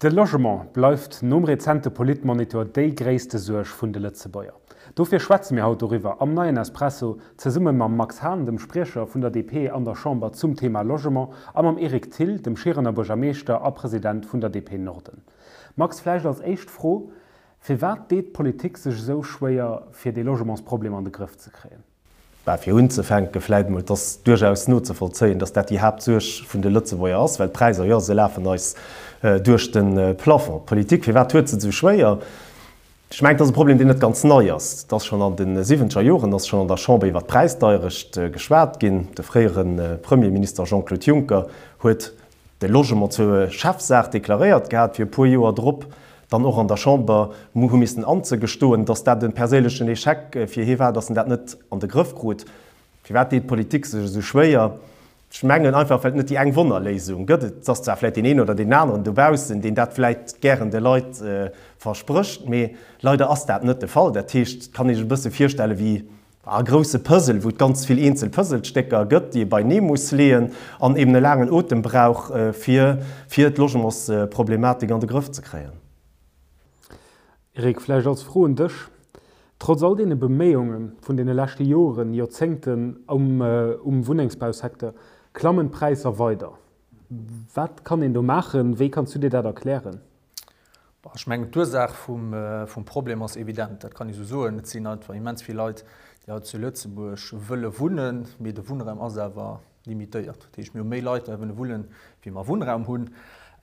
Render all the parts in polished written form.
De Logement bleift nom rezente Politmonitor déi gréisste Suerg vun de Lëtzebuerger. Dofir schwätze mir haut doriwwer am neien Espresso, zesumme mam Max Hahn, dem Spriecher vun der DP an der Chamber zum Thema Logement, a mam Eric Thill, dem Schierener Buergermeeschter a President vun der DP Norden. Max, vläicht als éischt Fro, Firwat deet d'Politik sech esou schwéier, fir dee Logementsproblem an de Grëff ze kréien? Bah, fir unzefänke vläit emol, et ass duerchaus nozevollzéien, dass dat déi Haaptsuerg vun de Lëtzebuerger ass, well d'Präisser, jo, se lafen eis duerch de Plafond. D'Politik, firwat huet se et esou schwéier? Ech mengen, et ass e Problem, deen net ganz nei ass. Et ass schonn an de siwwenzeger Joren ass schonn an der Chamber iwwert d'Präisdeierecht geschwat ginn. De fréiere Premierminister Jean-Claude Juncker huet de Logement zur Chefsaach deklaréiert gehat, fir e puer Joer drop dann och an der Chamber hu missen anzegestoen, datt dat e perséinlechen Echec fir hie war, datt en dat net an de Grëff krut. Firwat deet d'Politik sech esou schwéier? Ech mengen einfach, well et net déi eng Wonnerléisung gëtt. Et ass zwar vläicht deen een oder deen aneren dobaussen, deen dat vläicht gären de Leit versprécht, mee leider ass dat net de Fall. Dat heescht, et kann ee sech e bësse virstelle wéi E grousse Puzzle, wou et ganz vill eenzel Puzzlestécker gëtt, déi ee beinee muss leeën an eben e laangen Otem brauch, fir fir d'Logementsproblematik an de Grëff ze kréien. Eric, vläicht als Fro un dech, Trotz all deene Beméiunge vun deene leschte Joren, Joerzéngten um um Wunnengsbausecteur, klammen d'Präisser weider. Wat kann een do maachen? Wéi kanns du dir dat erklären? Ech mengen, d'Ursaach vum Problem ass evident, dat kann ee sou soen. Et sinn einfach immens vill Leit, déi haut zu Lëtzebuerg wëlle wunnen, mee de Wunnraum ass awer limitéiert. Dat heescht, mir hu méi Leit, déi wëlle wunnen, wéi mer Wunnraum hunn.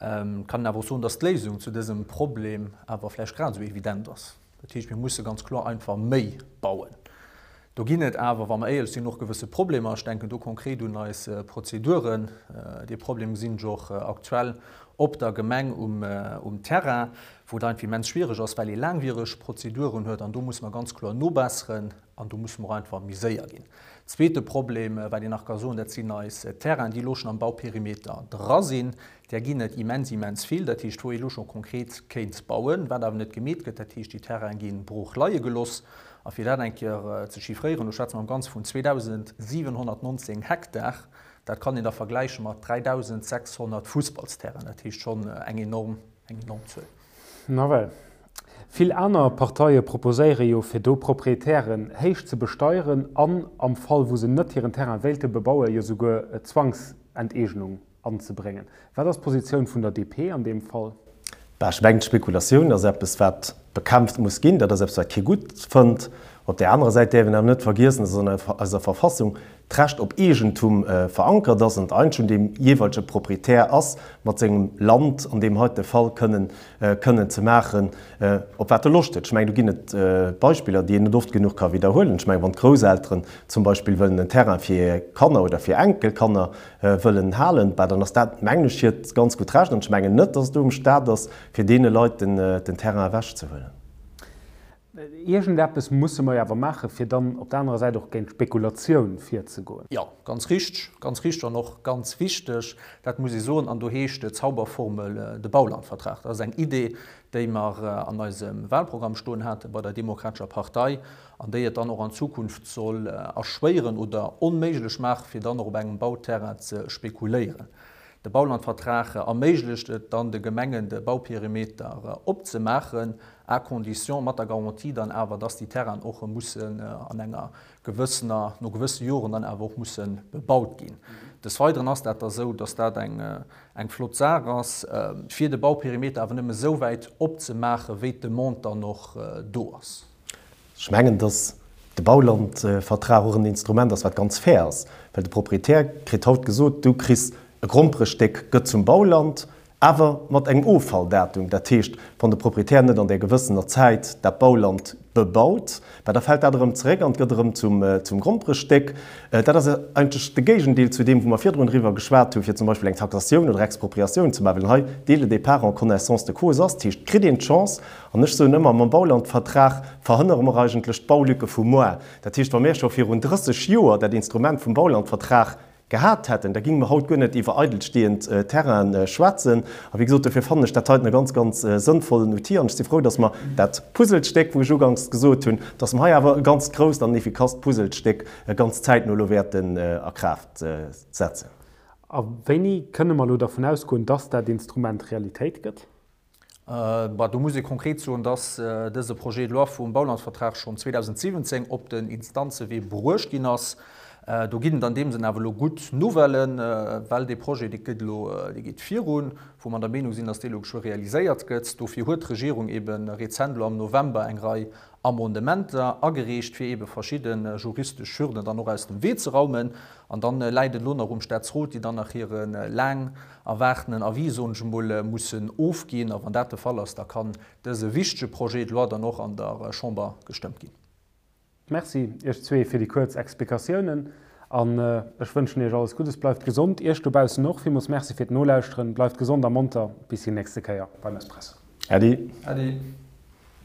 Et kann een awer och soen, datt d'Léisung zu dësem Problem awer vläicht grad esou evident ass. Dat heescht, mir musse ganz kloer einfach méi bauen. Do ginn et awer, wa mer éierlech sinn, och gewësse Problemer. Ech denken do konkret un eis Prozeduren. Dee Problem gesinn ech och aktuell op der Gemeng um Terrain, wou et einfach immens schwiereg ass, well ee laangwiereg Prozeduren huet. An do musse mer ganz kloer nobesseren an do musse mer och einfach méi séier ginn. Zweete Problem, wat een nach ka soen, dat sinn eis Terrainen, déi elo schonn am Bauperimeter dra sinn. Där ginn et immens, immens vill. Dat heescht, wou ee elo scho konkret kéint bauen, wat awer net gemeet gëtt. Dat heescht, déi Terraine gi brooch leie geloss. A fir dat eng Kéier ze chiffréieren, do schwätze mer am Ganze vun 2.719 Hektar. Dat kann een da vergläiche mat 3.600 Fussballsterrainen. Dat heescht schonn eng enorm, eng enorm Zuel. Nawell. Vill aner Parteie proposéiere jo, fir do Proprietären héich ze besteieren an, am Fall wou se net hiren Terrain wéilte bebauen, jo souguer Zwangsenteegnung anzebréngen. Wat ass d'Positioun vun der DP an deem Fall? Bah, ech mengen, d'Spekulatioun ass eppes, wat bekämpft muss ginn. Dat ass eppes, wat kee gutt fënnt. Op där anerer Säit däerf een awer net vergiessen, dass an eiser Verfassung d'Recht op Eegentum verankert ass an d'Eigent vun deem jeeweilege Proprietär ass, mat sengem Land an deem heite Fall kënnen kënnen ze maachen, op wat e Loscht huet. Ech mengen, do ginn et Beispiller, déi een net oft genuch ka widderhuelen. Ech mengen, wann d'Grousselteren zum Beispill wëllen en Terrain fir hir Kanner oder fir Enkelkanner wëllen halen, bah, dann ass dat, mengen ech, hiert ganz gutt Recht. An ech mengen net, dass et do um Stat ass, fir deene Leit den Terrain ewechzehuelen. Iergendeppes musse mer jo awer maachen, fir dann op der anerer Säit och géint d'Spekulatioun virzegoen. Jo, ganz richteg, ganz richteg an och ganz wichteg, dat muss ee soen. An do heescht d'Zauberformel de Baulandvertrag. Dat ass eng Idee, déi mer an eisem Wahlprogramm stoen hate bei der Demokratescher Partei an déi et dann och an Zukunft soll erschwéieren oder onméiglech maachen, fir dann och op engem Bauterrain ze spekuléieren. De Baulandvertrag erméiglecht et dann de Gemengen, de Bauperimeter opzemaachen, à condition, mat der Garantie dann awer, dass déi Terrainen och mussen an enger gewëssener, no gewësse Joren dann awer och musse bebaut ginn. Des Weideren ass dat da sou, dass dat eng eng flott Saach ass, fir de Bauperimeter awer nëmme sou wäit opzemaachen, wéi d'Demande dann och do ass. Ech mengen, dass de Baulandvertrag och en Instrument ass, wat ganz fair ass, well de Proprietär kritt haut gesot, du kriss e Gromperestéck, gëtt zum Bauland, awer mat engem Offalldatum. Dat heescht, wann de Proprietär net an där gewëssener Zäit dat Bauland bebaut, bah, da fält dat erëm zeréck an gëtt erëm zum Gromperestéck. Dat ass eigentlech de Géigendeel zu deem, wou mer virdrun driwwer geschwat hunn, fir zum Beispill eng Taxatioun oder Expropriatioun ze maachen, well hei dès le départ en connaissance de cause ass. Dat heescht, et kritt een d'Chance, An ech soen ëmmer, mam Baulandvertrag verhënnere mer eigentlech d'Baulücke vu moar. Dat heescht, wa mir scho virun 30 Joer dat Instrument vum Baulandvertrag gehat hätten, da géinge mer haut guer net iwwer eidelstehend Terraine schwätzen. A wéi gesot, dofir fannen ech dat heiten e ganz, ganz sënnvollen Outil. An ech si frou, dass mer dat Puzzlestéck, wou ech uganks gesot hunn, dass mer hei awer e ganz grousst an effikasst Puzzlestéck ganz zäitno elo wäerten a Kraaft setzen. A wéini kënne mer elo dervun ausgoen, dass dat Instrument Realitéit gëtt? Bah, do muss ee konkret soen, dass dëse Projet de loi vum Baulandsvertrag schonn 2017 op den Instanzewee bruecht ginn ass. Do ginn et an deem Sënn awer elo gutt Nouvellen, well dee Projet, dee gëtt elo, dee geet virun, wou mer der Meenung sinn, dass dee elo geschwë realiséiert gëtt. Dofir huet d'Regierung eebe rezent elo am November eng Rei Amendementer agereecht, fir eebe verschidde juristesch Hürden dann och aus dem Wee ze raumen. An dann läit et elo nach um Staatsrot, déi dann nach hire laang erwaartenen Avis, soen ech emol, mussen ofginn. A wann dat de Fall ass, da kann dëse wichtege Projet de loi dann och an der Chamber gestëmmt ginn. Merci Iech zwee fir déi kuerz Explikatiounen an ech wënschen Iech alles Guddes. Bleift gesond. Iech dobaussen och villmools Merci fir d'Nolauschteren. Bleift gesond a monter. Bis déi nächste Kéier beim Espresso. Äddi. Äddi.